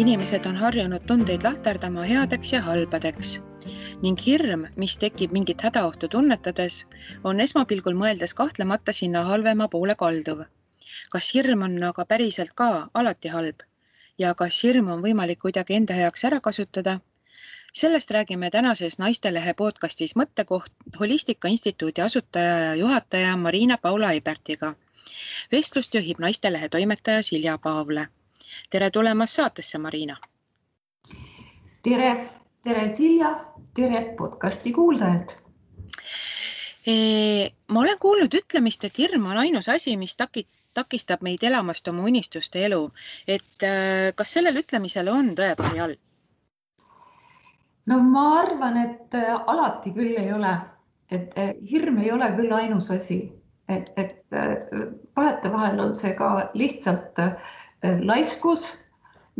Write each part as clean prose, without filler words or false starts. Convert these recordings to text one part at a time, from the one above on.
Inimesed on harjunud tundeid lahterdama headeks ja halbadeks ning hirm, mis tekib mingit hädaohtu tunnetades, on esmapilgul mõeldes kahtlemata sinna halvema poole kalduv. Kas hirm on aga päriselt ka alati halb ja kas hirm on võimalik kuidagi enda heaks ära kasutada? Sellest räägime tänases Naistelehe podcastis Mõttekoht Holistika Instituudi asutaja ja juhataja Marina Paula Eibertiga. Vestlust juhib Naistelehe toimetaja Silja Paavle. Tere tulemast saatesse, Marina! Tere Silja, tere podcasti kuuldajad! Ma olen kuulnud ütlemist, et hirm on ainus asi, mis takistab meid elamast oma unistuste elu. Kas sellel ütlemisel on tõepõhi all? No ma arvan, et alati küll ei ole. Et hirm ei ole küll ainus asi. Vahetevahel on see ka lihtsalt laiskus,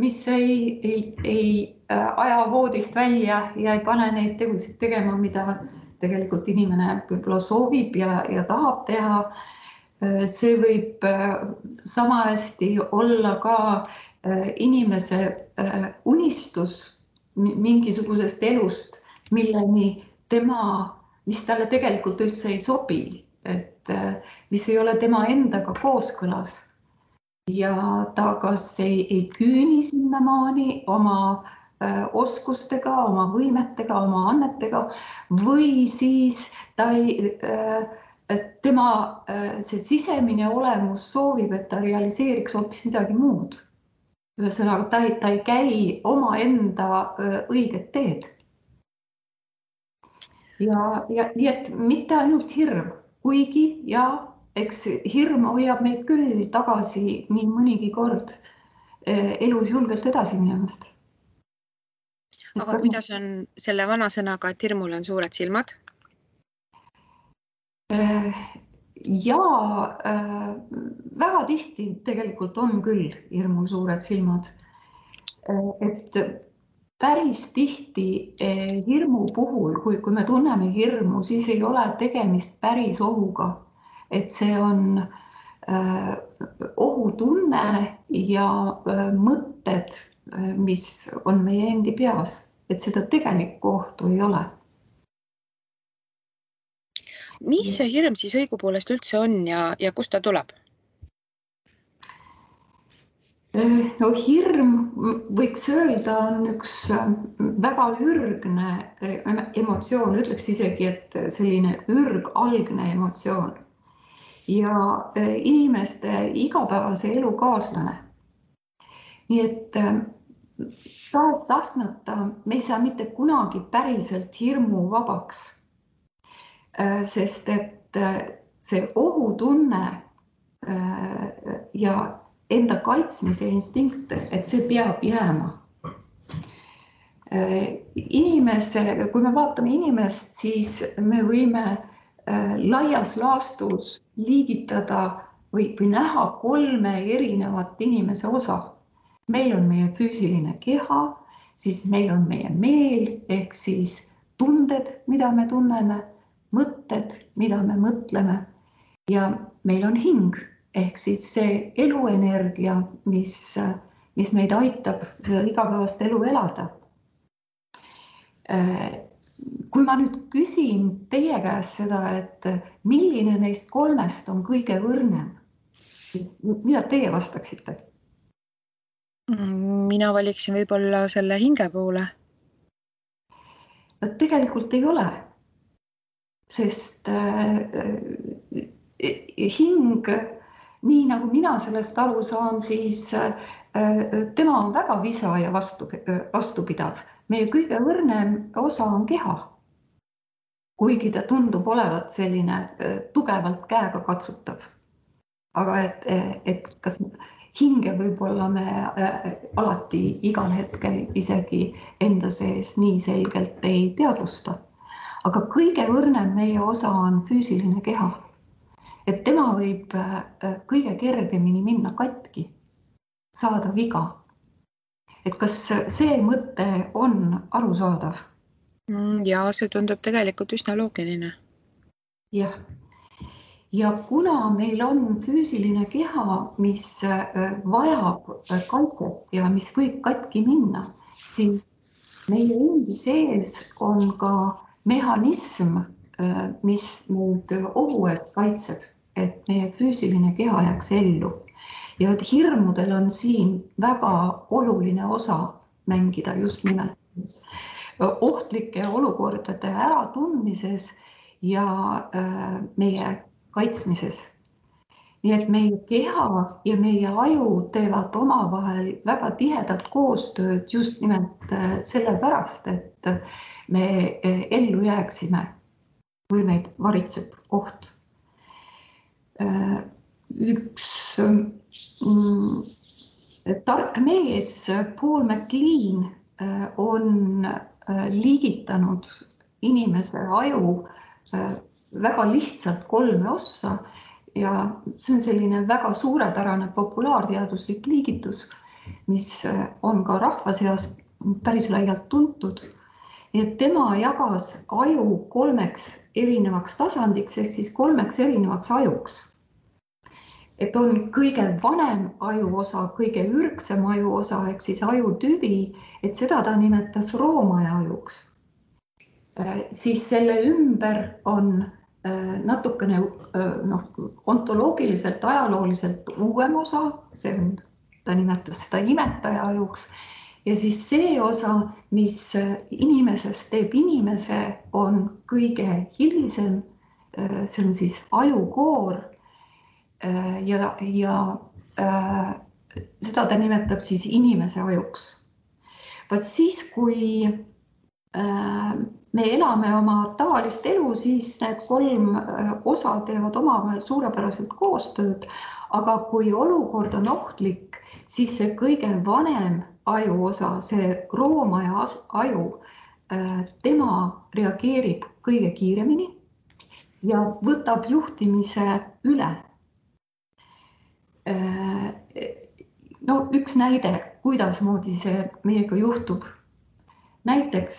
mis ei aja voodist välja ja ei pane neid tegusid tegema, mida tegelikult inimene võib-olla soovib ja tahab teha. See võib sama hästi olla ka inimese unistus mingisugusest elust, mis talle tegelikult üldse ei sobi, mis ei ole tema endaga kooskõlas. Ja ta kas ei küüni sinnamaani oma oskustega, oma võimetega, oma annetega või siis tema see sisemine olemus soovib, et ta realiseeriks hoopis midagi muud. Ühesõnaga, ta ei käi oma enda õiget teed. Ja nii, et mitte ainult hirm, kuigi ja eks hirm hoiab meid küll tagasi nii mõnigi kord elus julgelt edasi minemast. Aga kuidas on selle vana sõnaga, et hirmul on suured silmad? Ja väga tihti tegelikult on küll hirmul suured silmad. Et päris tihti hirmu puhul, kui me tunneme hirmu, siis ei ole tegemist päris ohuga. Et see on ohutunne ja mõtted, mis on meie endi peas. Et seda tegelikku ohtu ei ole. Mis see hirm siis õigupoolest üldse on ja kust ta tuleb? No hirm, võiks öelda, on üks väga ürgne emotsioon, ütleks isegi, et selline ürgalgne emotsioon. Ja inimeste igapäevase elu kaaslane. Nii et taas tahtmata me ei saa mitte kunagi päriselt hirmu vabaks. Sest et see ohutunne ja enda kaitsmise instinkt, et see peab jääma. Kui me vaatame inimest, siis me võime laias laastus liigitada või näha 3 erinevat inimese osa. Meil on meie füüsiline keha, siis meil on meie meel ehk siis tunded, mida me tunneme, mõtted, mida me mõtleme ja meil on hing ehk siis see eluenergia, mis meid aitab igapäevast elu elada. Kui ma nüüd küsin teie käest seda, et milline neist 3 on kõige õrnem, siis mida teie vastaksite? Mina valiksin võib-olla selle hinge poole. Tegelikult ei ole. Sest hing, nii nagu mina sellest aru saan, siis tema on väga visa ja vastupidav. Meie kõige õrnem osa on keha, kuigi ta tundub olevat selline tugevalt käega katsutav. Aga et kas hinge võib-olla me alati igal hetkel isegi enda sees nii selgelt ei teadvusta. Aga kõige õrnem meie osa on füüsiline keha. Et tema võib kõige kergemini minna katki, saada viga. Et kas see mõte on arusaadav? Ja see tundub tegelikult üsna loogiline. Jah. ja kuna meil on füüsiline keha, mis vajab kaitset ja mis võib katki minna, siis meie endi sees on ka mehhanism, mis meid ohu eest kaitseb, et meie füüsiline keha jääks ellu. Ja et hirmudel on siin väga oluline osa mängida just nimelt ohtlike olukordade äratundmises ja meie kaitsmises. Nii et meie keha ja meie aju teevad omavahel väga tihedalt koostööd just nimelt sellepärast, et me ellu jääksime, kui meid varitseb oht. Üks tark mees, Paul MacLean, on liigitanud inimese aju väga lihtsalt 3 ossa ja see on selline väga suurepärane populaarteaduslik liigitus, mis on ka rahva seas päris laialt tuntud. Nii et tema jagas aju 3 erinevaks tasandiks ehk siis 3 erinevaks ajuks. Et on kõige vanem ajuosa, kõige ürgsem ajuosa ehk siis ajutüvi, et seda ta nimetas roomaja ajuks. Siis selle ümber on natukene ontoloogiliselt, ajalooliselt uuem osa, ta nimetas seda imetaja ajuks, ja siis see osa, mis inimesest teeb inimese, on kõige hilisem, see on siis ajukoor ja seda ta nimetab siis inimese ajuks. Vaat siis, kui me elame oma tavalist elu, siis need 3 osa teevad omavahel suurepäraselt koostööd, aga kui olukord on ohtlik, siis see kõige vanem ajuosa, see roomaja aju, tema reageerib kõige kiiremini ja võtab juhtimise üle. No üks näide, kuidasmoodi see meiega juhtub. Näiteks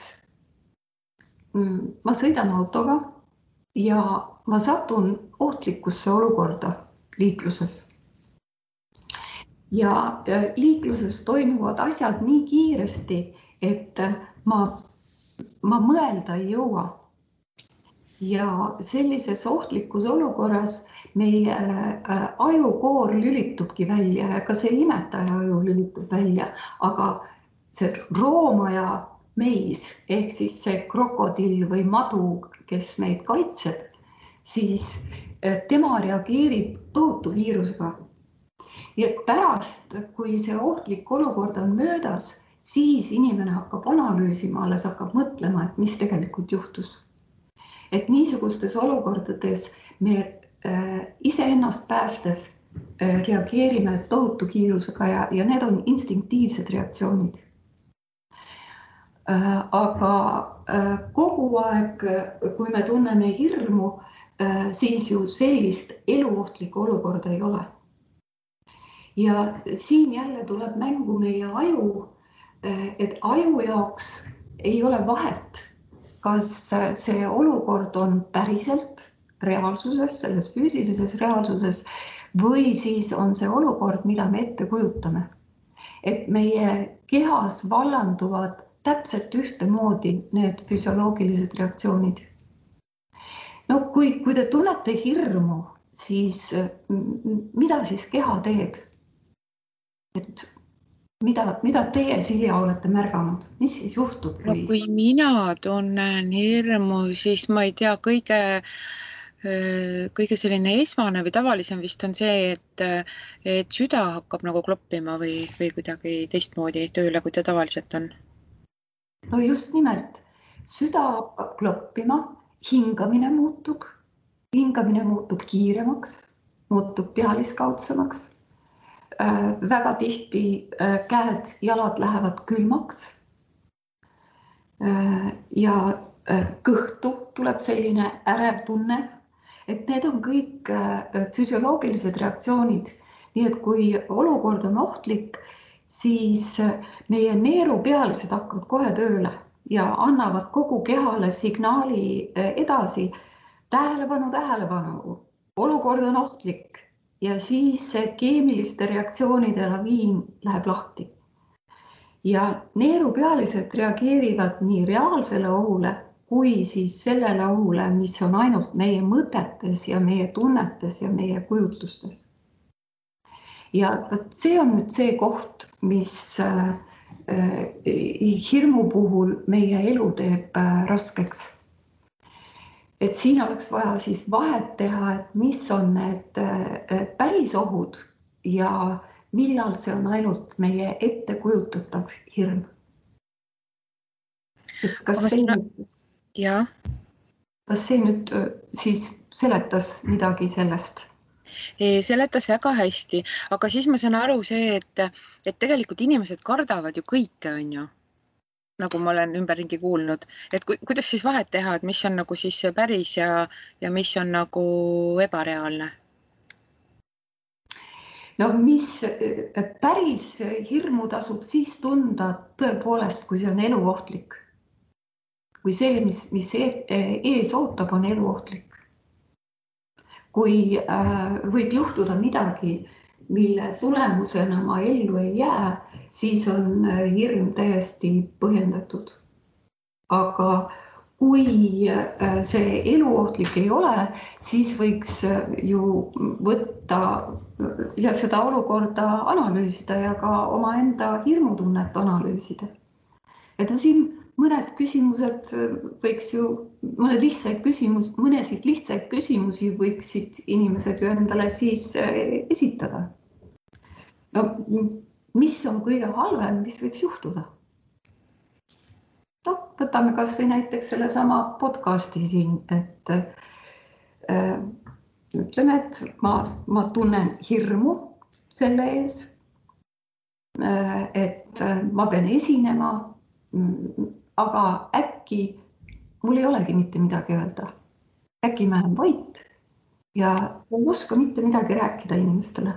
ma sõidan autoga ja ma satun ohtlikusse olukorda liikluses. Ja liikluses toimuvad asjad nii kiiresti, et ma mõelda ei jõua. Ja sellises ohtlikus olukorras meie ajukoor lülitubki välja ja ka see imetaja aju lülitub välja, aga see roomaja meis ehk siis see krokodill või madu, kes meid kaitseb, siis tema reageerib tohutu kiirusega. Ja pärast, kui see ohtlik olukord on möödas, siis inimene hakkab analüüsima, alles hakkab mõtlema, et mis tegelikult juhtus. Et niisugustes olukordades me iseennast päästes reageerime tohutu kiirusega ja need on instinktiivsed reaktsioonid. Aga kogu aeg, kui me tunneme hirmu, siis ju sellist eluohtlikku olukorda ei ole. Ja siin jälle tuleb mängu meie aju, et aju jaoks ei ole vahet, kas see olukord on päriselt reaalsuses, selles füüsilises reaalsuses või siis on see olukord, mida me ette kujutame. Et meie kehas vallanduvad täpselt ühtemoodi need füsioloogilised reaktsioonid. No kui te tunnete hirmu, siis mida siis keha teeb? Et mida teie, Silja, olete märganud? Mis siis juhtub? No kui mina tunnen hirmu, siis ma ei tea, kõige selline esmane või tavalisem vist on see, et süda hakkab nagu kloppima või kuidagi teistmoodi tööle, kui ta tavaliselt on. No just nimelt, süda hakkab kloppima, hingamine muutub kiiremaks, muutub pealiskaudsemaks. Väga tihti käed, jalad lähevad külmaks ja kõhtu tuleb selline ärev tunne, et need on kõik füsioloogilised reaktsioonid. Nii et kui olukord on ohtlik, siis meie neerupealised hakkavad kohe tööle ja annavad kogu kehale signaali edasi. Tähelepanu, tähelepanu, olukord on ohtlik ja siis see keemiliste reaktsioonide laviin läheb lahti. Ja neerupealised reageerivad nii reaalsele ohule kui siis sellele ohule, mis on ainult meie mõtetes ja meie tunnetes ja meie kujutlustes. Ja see on nüüd see koht, mis hirmu puhul meie elu teeb raskeks. Et siin oleks vaja siis vahet teha, et mis on need päris ohud ja millal see on ainult meie ettekujutatav hirm. Et kas see nüüd siis seletas midagi sellest? Seletas väga hästi, aga siis ma saan aru see, et tegelikult inimesed kardavad ju kõike, on ju, nagu ma olen ümberringi kuulnud, et kuidas siis vahet teha, et mis on nagu siis see päris ja mis on nagu ebareaalne? No mis päris hirmu tasub siis tunda tõepoolest, kui see on eluohtlik. Kui see, mis ees ootab, on eluohtlik. Kui võib juhtuda midagi, mille tulemusena ma ellu ei jää, siis on hirm täiesti põhjendatud. Aga kui see eluohtlik ei ole, siis võiks ju võtta ja seda olukorda analüüsida ja ka omaenda hirmutunnet analüüsida. Et no siin mõned küsimused võiks ju, mõnesid lihtsaid küsimusi võiksid inimesed ju endale siis esitada. No, mis on kõige halvem, mis võiks juhtuda? No, võtame kas või näiteks selle sama podcasti siin, et ütleme, et ma tunnen hirmu selle ees, et ma pean esinema, aga äkki mul ei olegi mitte midagi öelda. Äkki ma olen vait ja ei oska mitte midagi rääkida inimestele.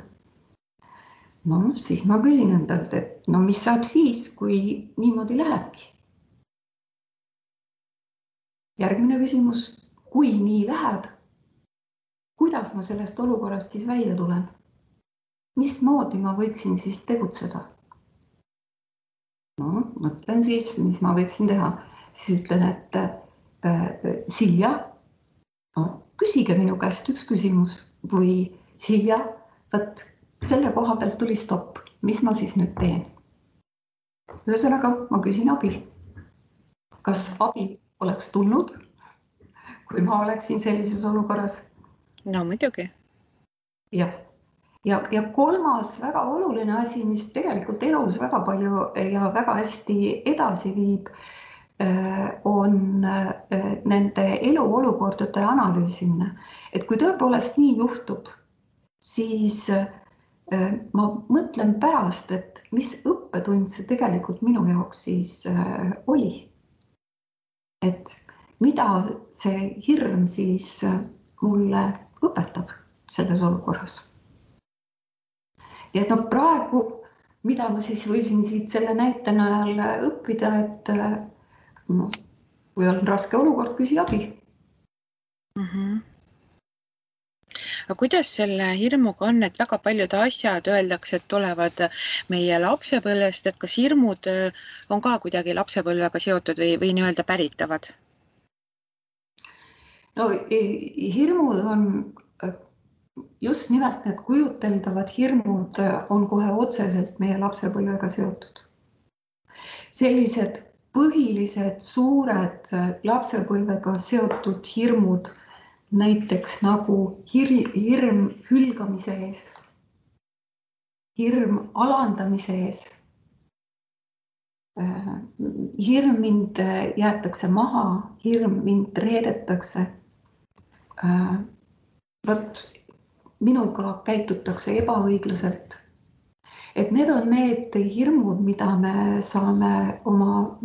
No siis ma küsin endalt, et no mis saab siis, kui niimoodi lähebki? Järgmine küsimus, kui nii läheb, kuidas ma sellest olukorrast siis välja tulen? Mismoodi ma võiksin siis tegutseda? No, mõtlen siis, mis ma võiksin teha. Siis ütlen, et Silja, küsige minu käest üks küsimus või Silja, võt selle koha pealt tuli stopp. Mis ma siis nüüd teen? Ühesõnaga, ma küsin abi. Kas abi oleks tulnud, kui ma oleksin sellises olukorras? No muidugi. Jah. Ja kolmas väga oluline asi, mis tegelikult elus väga palju ja väga hästi edasi viib, on nende eluolukordade analüüsimine. Et kui tõepoolest nii juhtub, siis ma mõtlen pärast, et mis õppetund see tegelikult minu jaoks siis oli. Et mida see hirm siis mulle õpetab selles olukorras. Ja et no praegu, mida ma siis võisin siit selle näite najal õppida, et no, kui on raske olukord, küsi abi. Aga kuidas selle hirmuga on, et väga paljud asjad öeldakse, et tulevad meie lapsepõlvest, et kas hirmud on ka kuidagi lapsepõlvega seotud või nii-öelda päritavad? No hirmud on just nimelt need kujuteldavad hirmud on kohe otseselt meie lapsepõlvega seotud. Sellised põhilised suured lapsepõlvega seotud hirmud, näiteks nagu hirm hülgamise ees, hirm alandamise ees, hirm mind jäetakse maha, hirm mind reedetakse, minuga käitutakse ebaõiglaselt. Et need on need hirmud, mida me saame oma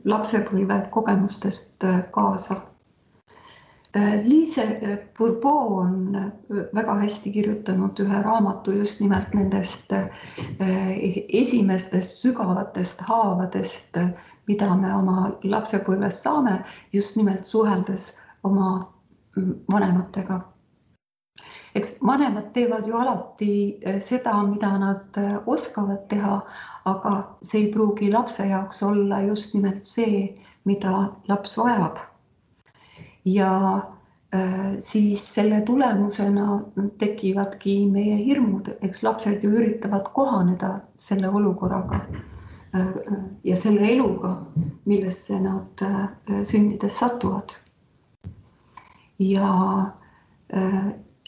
lapsepõlve kogemustest kaasa. Lise Bourbeau on väga hästi kirjutanud ühe raamatu just nimelt nendest esimestest sügavatest haavadest, mida me oma lapsepõlves saame, just nimelt suheldes oma vanematega. eks vanemad teevad ju alati seda, mida nad oskavad teha, aga see ei pruugi lapse jaoks olla just nimelt see, mida laps vajab. Ja siis selle tulemusena tekivadki meie hirmud, eks lapsed ju üritavad kohaneda selle olukorraga ja selle eluga, millesse nad sündides satuvad. Ja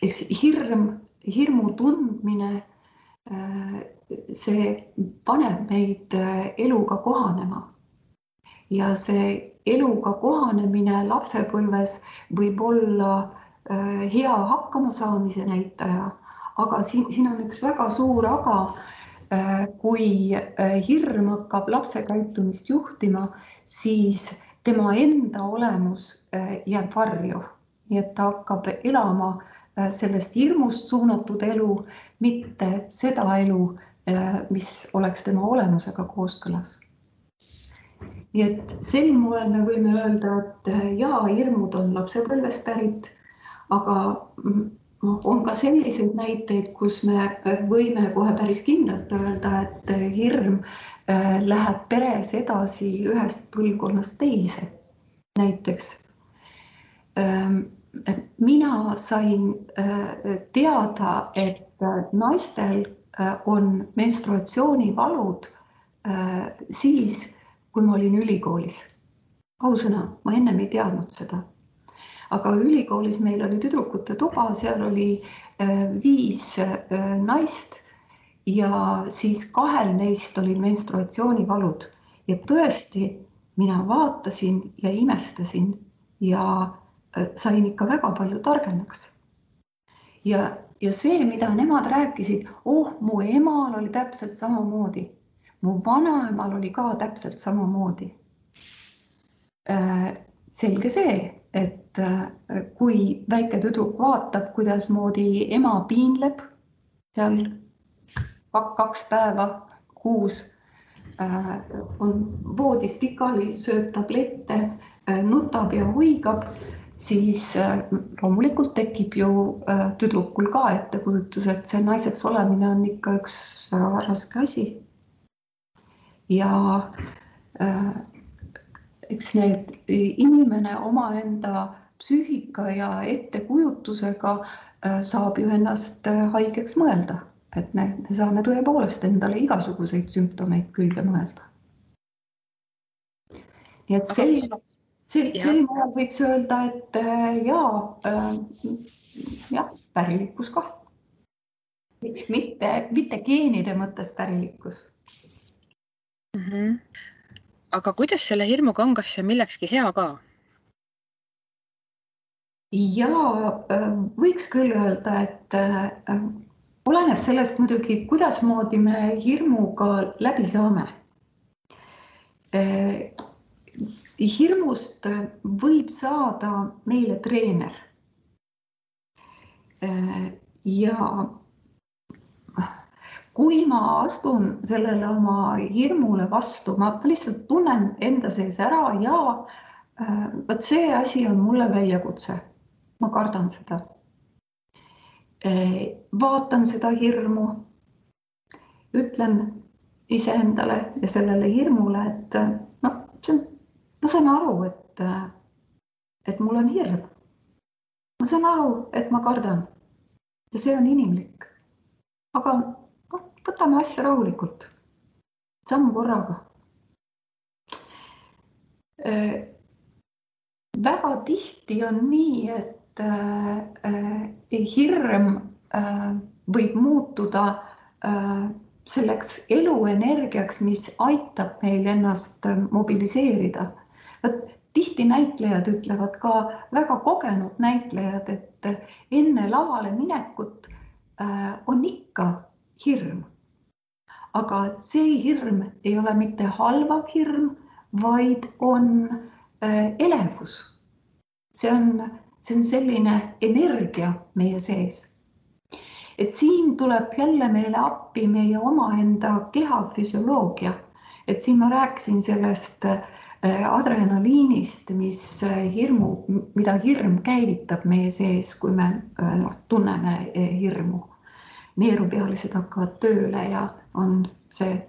eks hirmu tundmine, see paneb meid eluga kohanema. Ja see eluga kohanemine lapsepõlves võib olla hea hakkamasaamise näitaja, aga siin on üks väga suur aga, kui hirm hakkab lapse käitumist juhtima, siis tema enda olemus jääb varju. Nii et ta hakkab elama sellest hirmust suunatud elu, mitte seda elu, mis oleks tema olemusega kooskõlas. Nii et sel moel me võime öelda, et jaa, hirmud on lapsepõlvest pärit, aga on ka selliseid näiteid, kus me võime kohe päris kindlalt öelda, et hirm läheb peres edasi ühest põlvkonnast teise. Näiteks mina sain teada, et naistel on menstruatsioonivalud siis, kui ma olin ülikoolis. Ausõna, ma ennem ei teadnud seda. Aga ülikoolis meil oli tüdrukute tuba, seal oli 5 naist ja siis 2 neist oli menstruatsioonivalud. Ja tõesti, mina vaatasin ja imestasin ja sain ikka väga palju targemaks. Ja see, mida nemad rääkisid, mu emal oli täpselt samamoodi. Mu vanaemal oli ka täpselt samamoodi. Selge see, et kui väike tüdruk vaatab, kuidas moodi ema piinleb seal 2 päeva kuus, on voodis pikali, sööb tablette, nutab ja huigab, siis loomulikult tekib ju tüdrukul ka ettekujutus, et see naiseks olemine on ikka üks väga raske asi. Ja eks need inimene omaenda psüühika ja ettekujutusega saab ju ennast haigeks mõelda, et me saame tõepoolest endale igasuguseid sümptomeid külge mõelda. Nii et sel moel võiks öelda, et jah, pärilikkus ka. Mitte geenide mõttes pärilikkus. Aga kuidas selle hirmuga on, kas see millekski hea ka? Ja võiks küll öelda, et oleneb sellest muidugi, kuidas moodi me hirmuga läbi saame. Hirmust võib saada meile treener. Ja kui ma astun sellele oma hirmule vastu, ma lihtsalt tunnen enda sees ära ja võt see asi on mulle väljakutse. Ma kardan seda. Vaatan seda hirmu, ütlen iseendale ja sellele hirmule, et ma saan aru, et mul on hirm. Ma saan aru, et ma kardan ja see on inimlik. Aga võtame asja rahulikult, samm korraga. Väga tihti on nii, et hirm võib muutuda selleks eluenergiaks, mis aitab meil ennast mobiliseerida. Tihti näitlejad ütlevad ka, väga kogenud näitlejad, et enne lavale minekut on ikka hirm. Aga see hirm ei ole mitte halvav hirm, vaid on elevus. See on selline energia meie sees. Et siin tuleb jälle meile appi meie omaenda keha füsioloogia. Et siin ma rääkisin sellest adrenaliinist, mida hirm käivitab meie sees, kui me tunneme hirmu. Neerupealised hakkavad tööle ja on see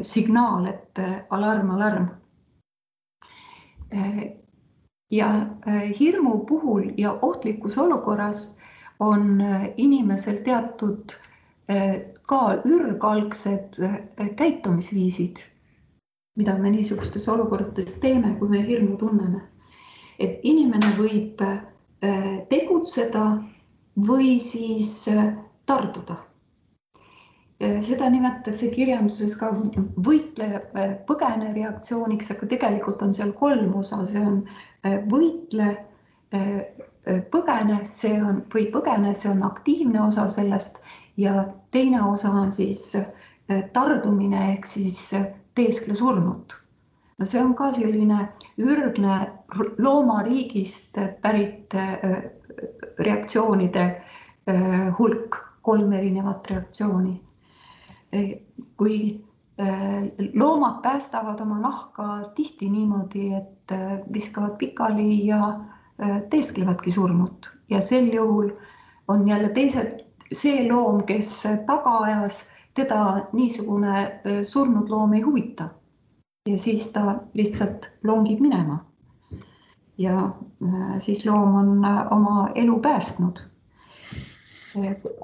signaal, et alarm, alarm. Ja hirmu puhul ja ohtlikus olukorras on inimesel teatud ka ürgalgsed käitumisviisid, mida me niisugustes olukordades teeme, kui me hirmu tunneme. Et inimene võib tegutseda või siis tarduda. Seda nimetatakse kirjanduses ka võitle-põgene reaktsiooniks, aga tegelikult on seal 3 osa, see on võitle, põgene, see on aktiivne osa sellest ja teine osa on siis tardumine ehk siis teeskle surnut. No see on ka selline ürgne loomariigist pärit reaktsioonide hulk, 3 erinevat reaktsiooni. Kui loomad päästavad oma nahka tihti niimoodi, et viskavad pikali ja teesklevadki surnut ja sel juhul on jälle see loom, kes taga ajas, teda niisugune surnud loom ei huvita. Ja siis ta lihtsalt longib minema. Ja siis loom on oma elu päästnud.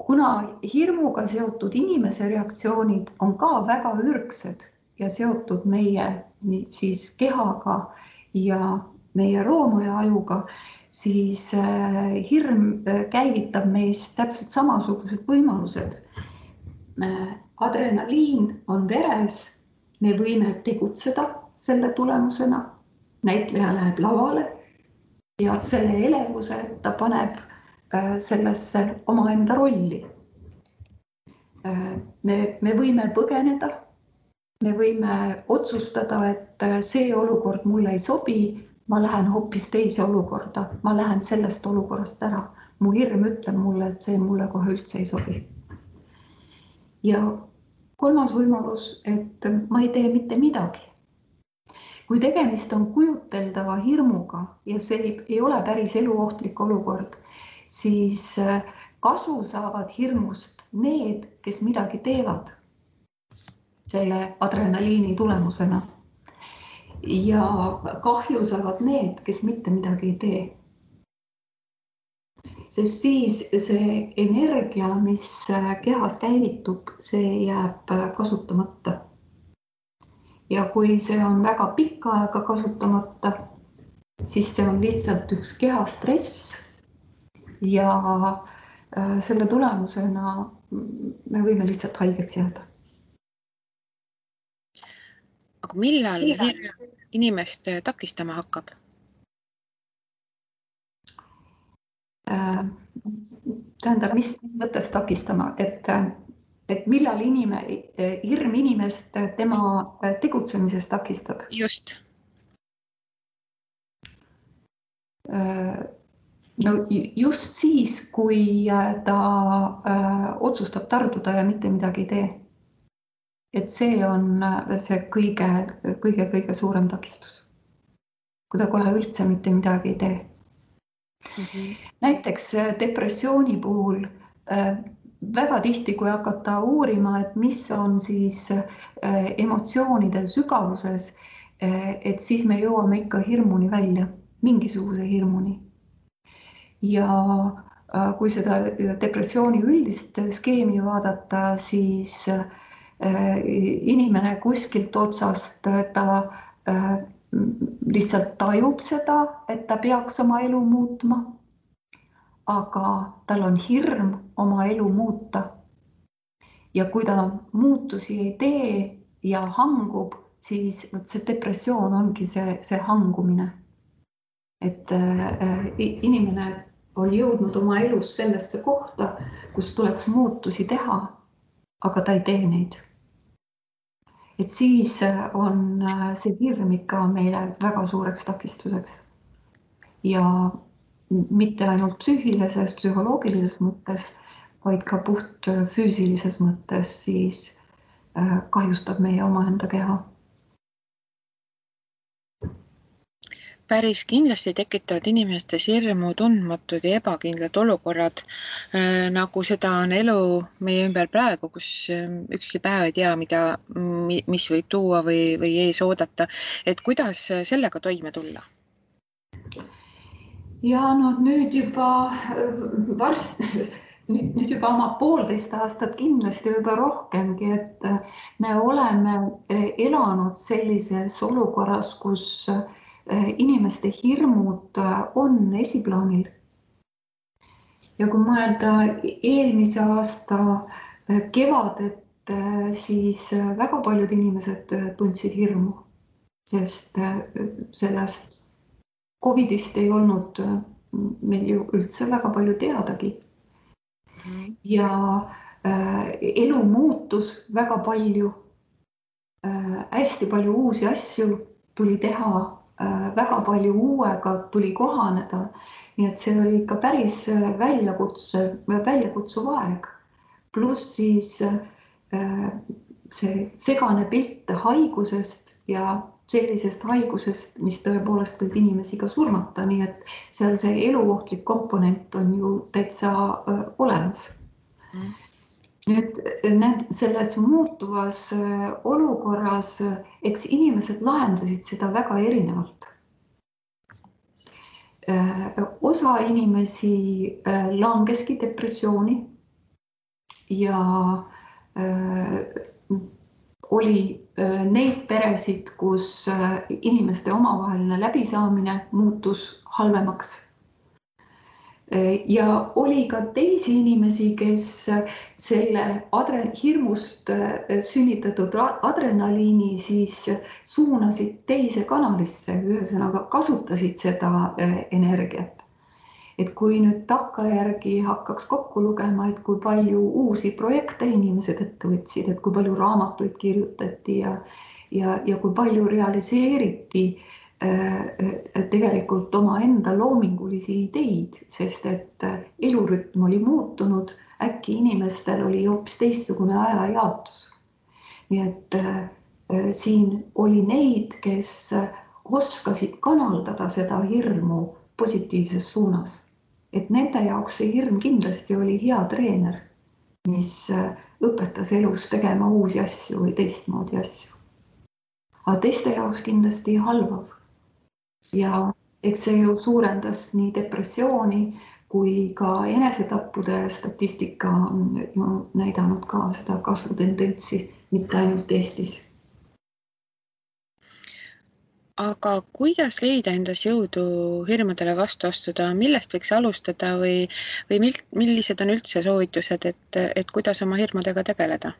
Kuna hirmuga seotud inimese reaktsioonid on ka väga ürgsed ja seotud meie siis kehaga ja meie roomu ja ajuga, siis hirm käivitab meis täpselt samasugused võimalused. Adrenaliin on veres, me võime tegutseda selle tulemusena, näitleja läheb lavale ja selle elevuse ta paneb sellesse omaenda rolli. Me võime põgeneda, me võime otsustada, et see olukord mulle ei sobi, ma lähen hoopis teise olukorda, ma lähen sellest olukorrast ära. Mu hirm ütleb mulle, et see mulle kohe üldse ei sobi. Ja 3. võimalus, et ma ei tee mitte midagi. Kui tegemist on kujuteldava hirmuga ja see ei ole päris eluohtlik olukord, siis kasu saavad hirmust need, kes midagi teevad selle adrenaliini tulemusena. Ja kahju saavad need, kes mitte midagi ei tee. Sest siis see energia, mis kehas käivitub, see jääb kasutamata. Ja kui see on väga pikka aega kasutamata, siis see on lihtsalt üks kehastress ja selle tulemusena me võime lihtsalt haigeks jääda. Aga millal hirm inimest takistama hakkab? Tähendab, mis mõttes takistama, et millal hirm inimest tema tegutsemisest takistab? Just. No just siis, kui ta otsustab tarduda ja mitte midagi ei tee. Et see on see kõige suurem takistus. Kui ta kohe üldse mitte midagi ei tee. Näiteks depressiooni puhul väga tihti, kui hakata uurima, et mis on siis emotsioonide sügavuses, et siis me jõuame ikka hirmuni välja, mingisuguse hirmuni. Ja kui seda depressiooni üldist skeemi vaadata, siis inimene kuskilt otsast ta lihtsalt tajub seda, et ta peaks oma elu muutma, aga tal on hirm oma elu muuta. Ja kui ta muutusi ei tee ja hangub, siis see depressioon ongi see hangumine. Et inimene on jõudnud oma elus sellesse kohta, kus tuleks muutusi teha, aga ta ei tee neid. Et siis on see hirm ikka meile väga suureks takistuseks. Ja mitte ainult psüühilises, psühholoogilises mõttes, vaid ka puht füüsilises mõttes siis kahjustab meie omaenda keha. Päris kindlasti tekitavad inimestes hirmu tundmatud ja ebakindlad olukorrad, nagu seda on elu meie ümber praegu, kus ükski päev ei tea, mis võib tuua või ees oodata. Et kuidas sellega toime tulla? Ja no nüüd juba nüüd juba oma 1,5 aastat kindlasti juba rohkemgi, et me oleme elanud sellises olukorras, kus inimeste hirmud on esiplaanil. Ja kui mõelda eelmise aasta kevadet, siis väga paljud inimesed tundsid hirmu, sest sellest Covidist ei olnud meil ju üldse väga palju teadagi. Ja elu muutus väga palju, hästi palju uusi asju tuli teha, väga palju uuega tuli kohaneda. Nii et see oli ikka päris väljakutsuv aeg. Pluss siis see segane pilt haigusest ja sellisest haigusest, mis tõepoolest võib inimesi ka surmata, nii et seal see eluohtlik komponent on ju täitsa olemas. Nüüd selles muutuvas olukorras, eks inimesed lahendasid seda väga erinevalt. Osa inimesi langeski depressiooni ja oli neid peresid, kus inimeste omavaheline läbisaamine muutus halvemaks. Ja oli ka teisi inimesi, kes selle hirmust sünnitatud adrenaliini siis suunasid teise kanalisse, ühesõnaga kasutasid seda energiat. Et kui nüüd takkajärgi hakkaks kokku lugema, et kui palju uusi projekte inimesed ette võtsid, et kui palju raamatuid kirjutati ja kui palju realiseeriti tegelikult oma enda loomingulisi ideid, sest et elurütm oli muutunud, äkki inimestel oli hoopis teistsugune ajajaotus. Nii et siin oli neid, kes oskasid kanaldada seda hirmu positiivses suunas. Et nende jaoks see hirm kindlasti oli hea treener, mis õpetas elus tegema uusi asju või teistmoodi asju. Aga teiste jaoks kindlasti halvav. Ja eks see ju suurendas nii depressiooni kui ka enesetappude statistika on ju näidanud ka seda kasvutendentsi, mitte ainult Eestis. Aga kuidas leida endas jõudu hirmudele vastu astuda, millest võiks alustada või millised on üldse soovitused, et kuidas oma hirmudega tegeleda?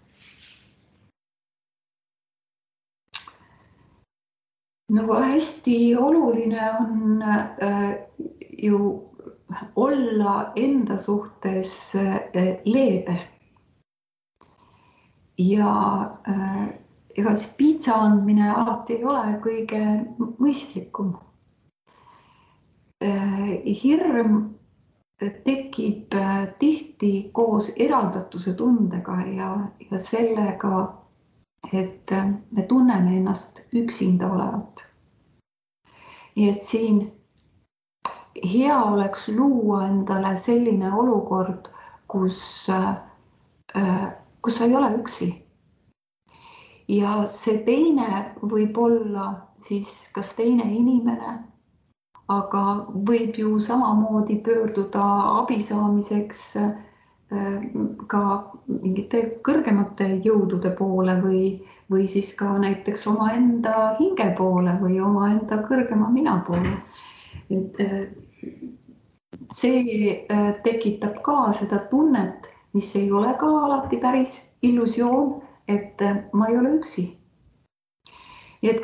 No hästi oluline on ju olla enda suhtes leebe. Ja ega siis piitsa andmine alati ei ole kõige mõistlikum. Hirm tekib tihti koos eraldatuse tundega ja sellega, et me tunneme ennast üksinda olevat. Nii et siin hea oleks luua endale selline olukord, kus sa ei ole üksi. Ja see teine võib olla siis kas teine inimene, aga võib ju samamoodi pöörduda abi saamiseks ka mingite kõrgemate jõudude poole või siis ka näiteks omaenda hinge poole või omaenda kõrgema mina poole. See tekitab ka seda tunnet, mis ei ole ka alati päris illusioon, et ma ei ole üksi. Et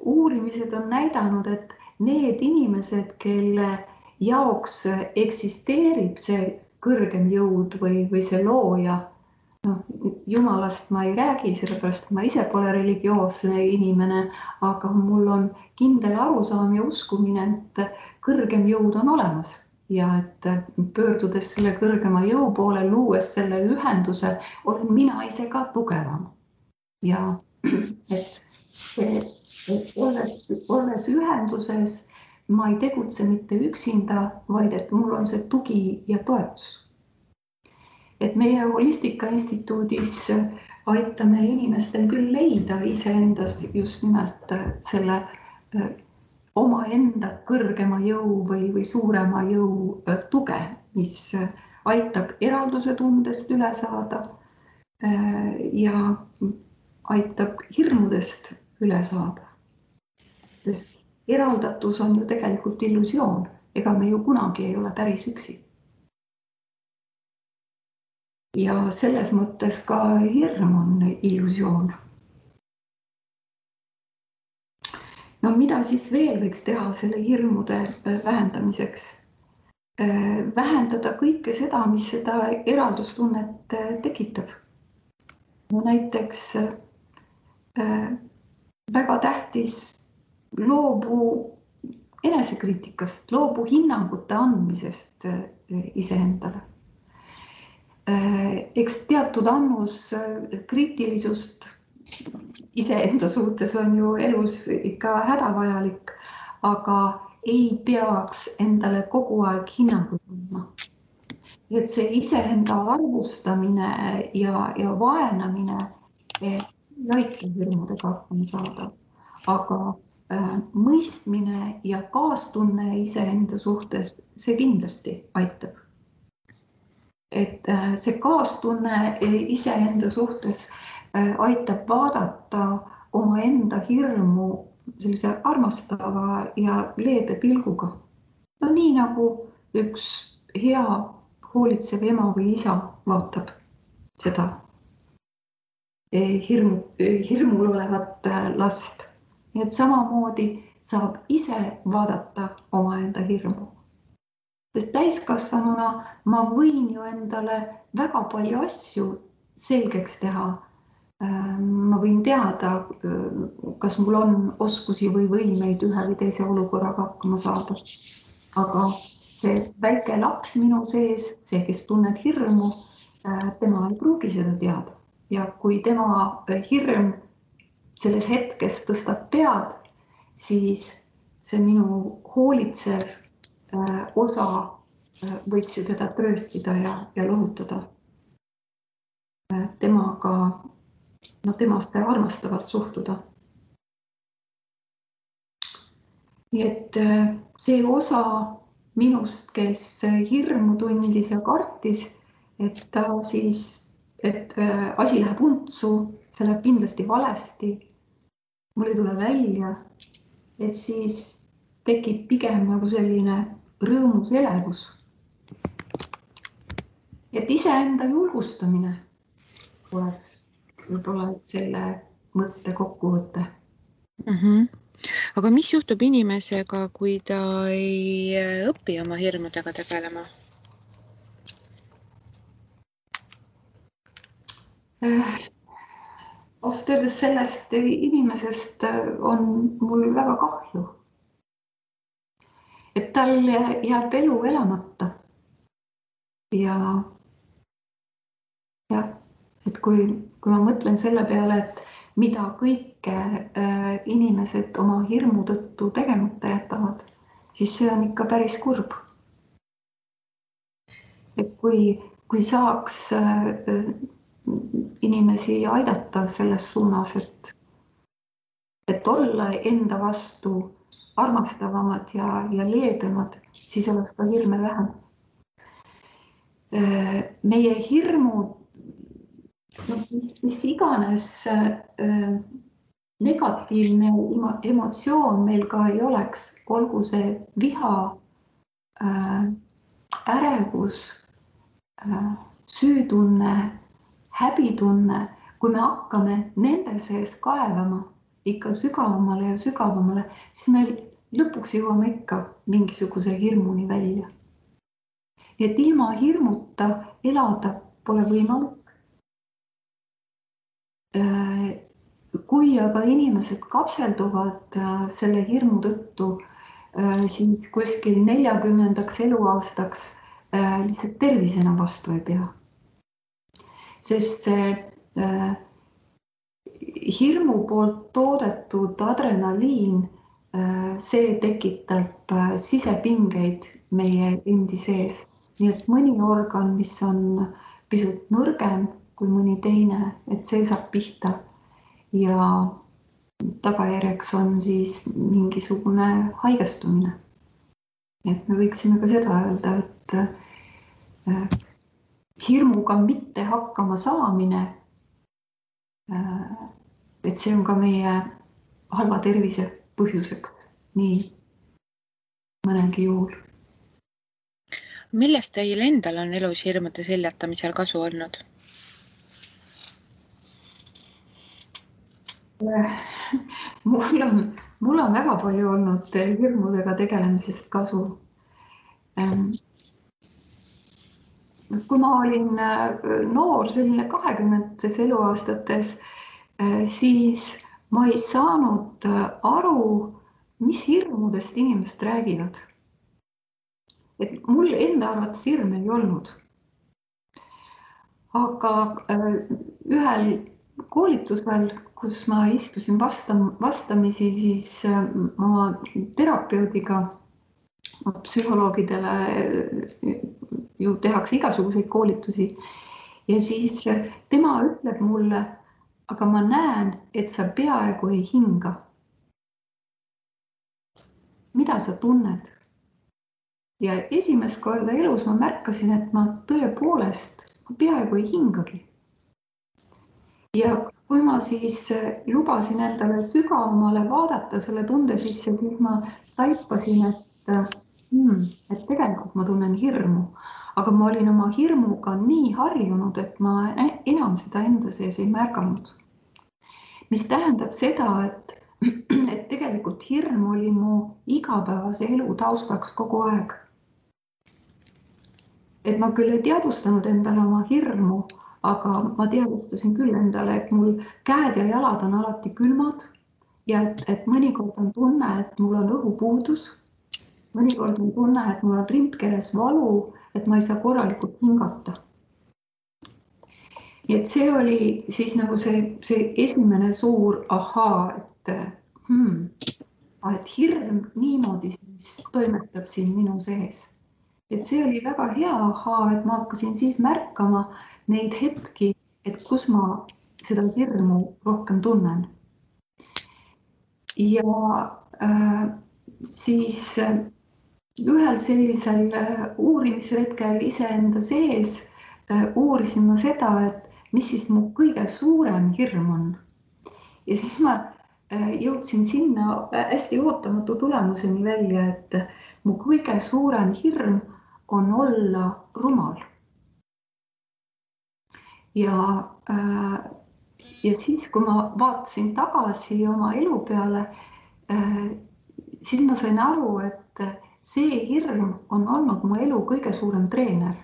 uurimised on näidanud, et need inimesed, kelle jaoks eksisteerib see kõrgem jõud või see looja, Jumalast ma ei räägi, sellepärast ma ise pole religioosne inimene, aga mul on kindel arusaam ja uskumine, et kõrgem jõud on olemas. Ja et pöördudes selle kõrgema jõu poole, luues selle ühenduse, olen mina ise ka tugevam. Ja et see olles ühenduses, ma ei tegutse mitte üksinda, vaid et mul on see tugi ja toetus. Et meie Holistika Instituudis aitame inimestel küll leida iseendas just nimelt selle omaenda kõrgema jõu või suurema jõu tuge, mis aitab eralduse tundest üle saada ja aitab hirmudest üle saada. Sest eraldatus on ju tegelikult illusioon, ega me ju kunagi ei ole päris üksi. Ja selles mõttes ka hirm on illusioon. No mida siis veel võiks teha selle hirmude vähendamiseks? Vähendada kõike seda, mis seda eraldustunnet tekitab. No näiteks väga tähtis loobu enesekriitikast, loobu hinnangute andmisest iseendale. Eks teatud annus kriitilisust iseenda suhtes on ju elus ikka hädavajalik, aga ei peaks endale kogu aeg hinnangut andma. Et see iseenda arvustamine ja vaenamine, see ei aita hirmudega hakkama saada, aga mõistmine ja kaastunne iseenda suhtes, see kindlasti aitab. Et see kaastunne iseenda suhtes aitab vaadata omaenda hirmu sellise armastava ja leebe pilguga. No nii nagu üks hea hoolitsev ema või isa vaatab seda hirmul olevat last. Et samamoodi saab ise vaadata omaenda hirmu. Sest täiskasvanuna ma võin ju endale väga palju asju selgeks teha. Ma võin teada, kas mul on oskusi või võimeid ühe või teise olukorraga hakkama saada. Aga see väike laps minu sees, see, kes tunneb hirmu, tema ei pruugi seda teada. Ja kui tema hirm selles hetkes tõstab pead, siis see minu hoolitsev osa võiks ju teda trööstida ja lohutada. Temasse armastavalt suhtuda. Nii et see osa minust, kes hirmu tundis ja kartis, et asi läheb untsu, see läheb kindlasti valesti, mul ei tule välja, et siis tekib pigem nagu selline rõõmus elevus. Et iseenda julgustamine oleks võib-olla selle mõtte kokkuvõte. Aga mis juhtub inimesega, kui ta ei õpi oma hirmudega tegelema? Ausalt öeldes sellest inimesest on mul väga kahju. Et tal jääb elu elamata. Ja et kui ma mõtlen selle peale, et mida kõike inimesed oma hirmu tõttu tegemata jätavad, siis see on ikka päris kurb. Et kui saaks inimesi aidata selles suunas, et olla enda vastu armastavamad ja leebemad, siis oleks ka hirme vähem. Meie hirmud, mis iganes negatiivne emotsioon meil ka ei oleks, olgu see viha, ärevus, süütunne, häbitunne, kui me hakkame nende sees kaevama ikka sügavamale ja sügavamale, siis me lõpuks jõuame ikka mingisuguse hirmuni välja. Et ilma hirmuta elada pole võimalik. Kui aga inimesed kapselduvad selle hirmu tõttu, siis kuskil 40. eluaastaks lihtsalt tervis enam vastu ei pea. Sest see hirmu poolt toodetud adrenaliin, see tekitab sisepingeid meie endi sees. Nii et mõni organ, mis on pisut nõrgem kui mõni teine, et see saab pihta ja tagajärjeks on siis mingisugune haigestumine. Et me võiksime ka seda öelda, et hirmuga mitte hakkama saamine, et see on ka meie halva tervise põhjuseks nii mõnelgi juhul. Millest teil endal on elus hirmude seljatamisel kasu olnud? Mul on väga palju olnud hirmudega tegelemisest kasu. Kui ma olin noor, selline 20 eluaastates, siis ma ei saanud aru, mis hirmudest inimesed räägivad. Et mul enda arvates hirme ei olnud. Aga ühel koolitusel, kus ma istusin vastamisi, siis oma terapeudiga, psühholoogidele ju tehakse igasuguseid koolitusi ja siis tema ütleb mulle, aga ma näen, et sa peaaegu ei hinga. Mida sa tunned? Ja esimest korda elus ma märkasin, et ma tõepoolest peaaegu ei hingagi. Ja kui ma siis lubasin endale sügavamale vaadata selle tunde sisse, siis ma taipasin, et tegelikult ma tunnen hirmu, aga ma olin oma hirmuga nii harjunud, et ma enam seda enda sees ei märganud. Mis tähendab seda, et tegelikult hirm oli mu igapäevase elu taustaks kogu aeg. Et ma küll ei teadvustanud endale oma hirmu, aga ma teadvustasin küll endale, et mul käed ja jalad on alati külmad ja et mõnikord on tunne, et mul on õhupuudus. Mõnikord on tunne, et mul on rindkeres valu, et ma ei saa korralikult hingata. Ja et see oli siis nagu see esimene suur ahaa, et hirm niimoodi siis toimetab siin minu sees. Et see oli väga hea ahaa, et ma hakkasin siis märkama neid hetki, et kus ma seda hirmu rohkem tunnen. Ja siis ühel sellisel uurimisretkel iseenda sees uurisin ma seda, et mis siis mu kõige suurem hirm on. Ja siis ma jõudsin sinna hästi ootamatu tulemuseni välja, et mu kõige suurem hirm on olla rumal. Ja siis, kui ma vaatasin tagasi oma elu peale, siis ma sain aru, et see hirm on olnud mu elu kõige suurem treener.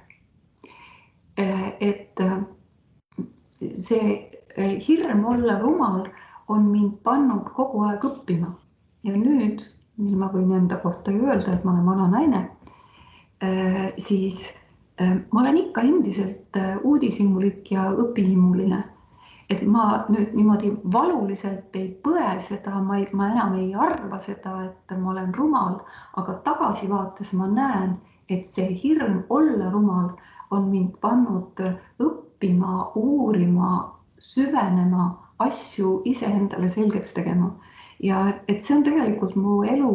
Et see hirm olla rumal on mind pannud kogu aeg õppima. Ja nüüd, mil ma võin enda kohta öelda, et ma olen vana naine, siis ma olen ikka endiselt uudishimulik ja õpihimuline. Et ma nüüd niimoodi valuliselt ei põe seda, ma enam ei arva seda, et ma olen rumal, aga tagasivaates ma näen, et see hirm olla rumal on mind pannud õppima, uurima, süvenema, asju iseendale selgeks tegema. Ja et see on tegelikult mu elu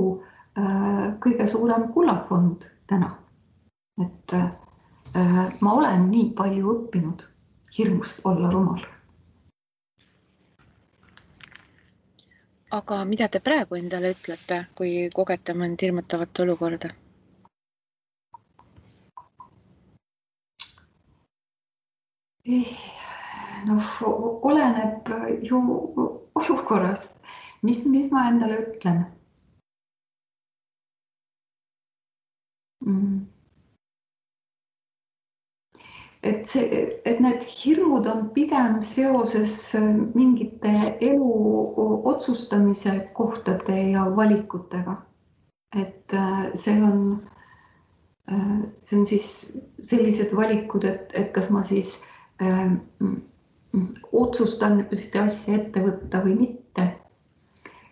kõige suurem kullafond täna. Et ma olen nii palju õppinud hirmust olla rumal. Aga mida te praegu endale ütlete, kui kogete mõnd hirmutavat olukorda? Oleneb ju olukorrast, mis ma endale ütlen. Et need hirmud on pigem seoses mingite elu otsustamise kohtade ja valikutega. Et see on siis sellised valikud, et kas ma siis otsustan ühte asja ette võtta või mitte.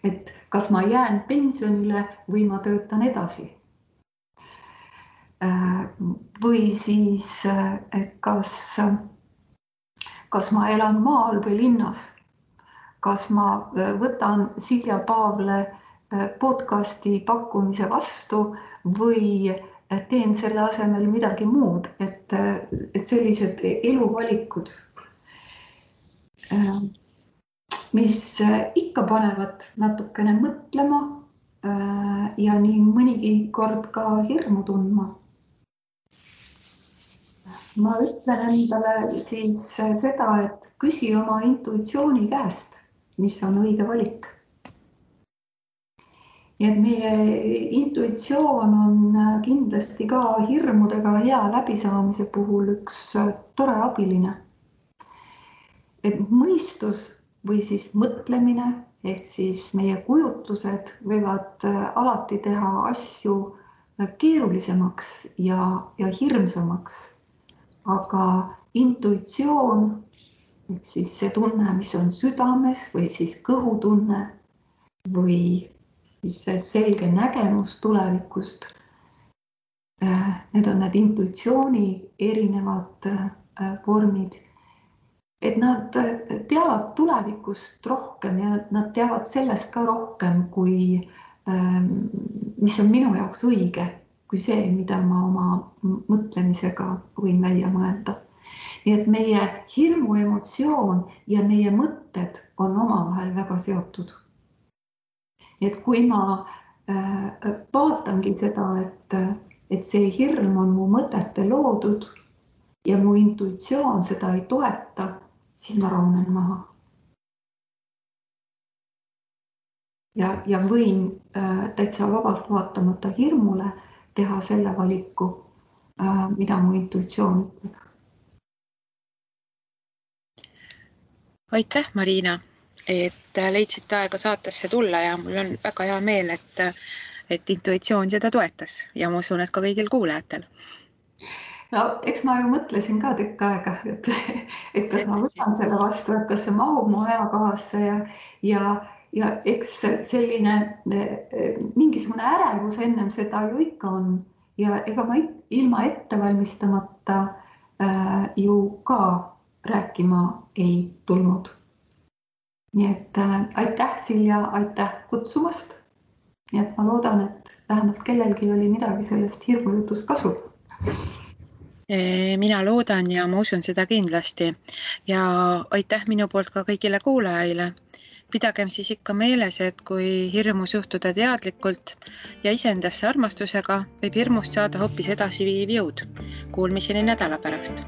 Et kas ma jään pensionile või ma töötan edasi. Või siis, et kas ma elan maal või linnas. Kas ma võtan Silja Paavle podcasti pakkumise vastu või teen selle asemel midagi muud, et sellised eluvalikud, mis ikka panevad natukene mõtlema ja nii mõnigi kord ka hirmu tundma. Ma ütlen endale siis seda, et küsi oma intuitsiooni käest, mis on õige valik. Ja et meie intuitsioon on kindlasti ka hirmudega hea läbisaamise puhul üks tore abiline. Et mõistus või siis mõtlemine ehk siis meie kujutlused võivad alati teha asju keerulisemaks ja hirmsamaks. Aga intuitsioon ehk siis see tunne, mis on südames või siis kõhutunne või see selge nägemus tulevikust. Need on need intuitsiooni erinevad vormid. Et nad teavad tulevikust rohkem ja nad teavad sellest ka rohkem, kui mis on minu jaoks õige, kui see, mida ma oma mõtlemisega võin välja mõelda. Nii et meie hirmu emotsioon ja meie mõtted on omavahel väga seotud. Et kui ma vaatangi seda, et see hirm on mu mõtete loodud ja mu intuitsioon seda ei toeta, siis ma rahunen maha. Ja võin täitsa vabalt vaatamata hirmule teha selle valiku, mida mu intuitsioon ütleb. Aitäh, Marina, et leidsid aega saatesse tulla ja mul on väga hea meel, et intuitsioon seda toetas ja ma usun, et ka kõigil kuulajatel. No, eks ma ju mõtlesin ka tükk aega, et kas ma võtan selle vastu, et kas see mahub mu ajakohasse ja eks selline mingisugune ärevus ennem seda ju ikka on ja ega ma ilma ettevalmistamata ju ka rääkima ei tulnud. Nii et aitäh, Silja, aitäh kutsumast. Nii et ma loodan, et vähemalt kellelgi oli midagi sellest hirmujutust kasu. Mina loodan ja ma usun seda kindlasti ja aitäh minu poolt ka kõigile kuulajaile. Pidagem siis ikka meeles, et kui hirmus juhtuda teadlikult ja iseendasse armastusega, võib hirmust saada hoopis edasiviiv jõud. Kuulmiseni nädala pärast.